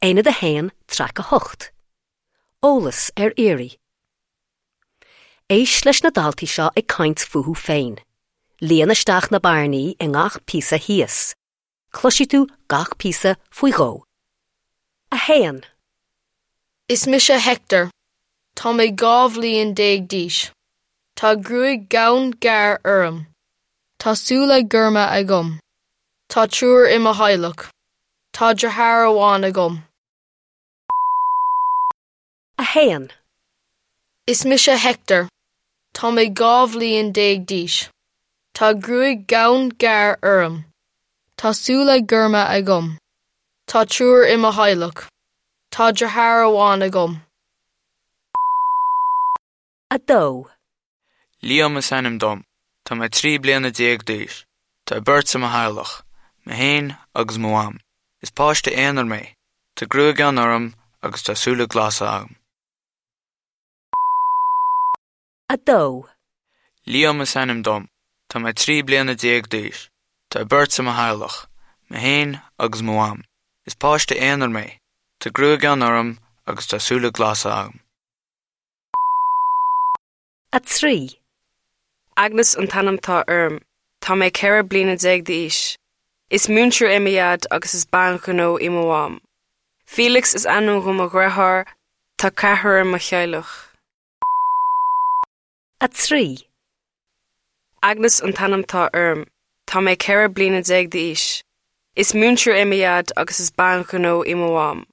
Aonad 1, Traic 8. Eolas ar iarraidh. Éist leis na daltaí seo ag caint fúthu féin. Líon isteach na bearnaí i ngach píosa thíos. Cloisfidh tú gach píosa faoi dhó. 1. Is mise Hector. Tá mé 12 bhliain d'aois. Tá gruaig dhonn ghearr orm. Tá súile gorma agam. Tá triúr i mo theaghlach. Tá deartháir amháin agam. 1. Is mise Hector. Tá mé 12 bhliain d'aois. Tá gruaig dhonn ghearr orm. Tá súile gorma agam. Tá triúr i mo theaghlach. Tá deartháir amháin agam. 2. Liam is ainm dom. Tá mé 13 bliana d'aois. Tá beirt i mo theaghlach, mé féin agus mo mham. Is páiste aonair mé. Tá gruaig fhionn orm agus tá súile glasa agam. 2. Liam is ainm dom. Tá mé 13 bliana d'aois. Tá beirt i mo theaghlach, mé féin agus mo mham. Is páiste aonair mé. Tá gruaig fhionn orm agus tá súile glasa agam. 3. Agnes an t-ainm atá orm. Tá mé 14 bliana d'aois. Is múinteoir é mo dhaid agus is bean ghnó í mo mham. Felix is ainm do mo dheartháir, tá ceathrar i mo theaghlach. 3. Agnes an t-ainm atá orm. Tá mé 14 bliana d'aois. Is múinteoir é mo dhaid agus is bean ghnó í mo mham.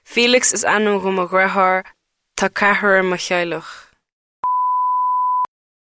Felix is ainm do mo dheartháir, tá ceathrar i mo theaghlach.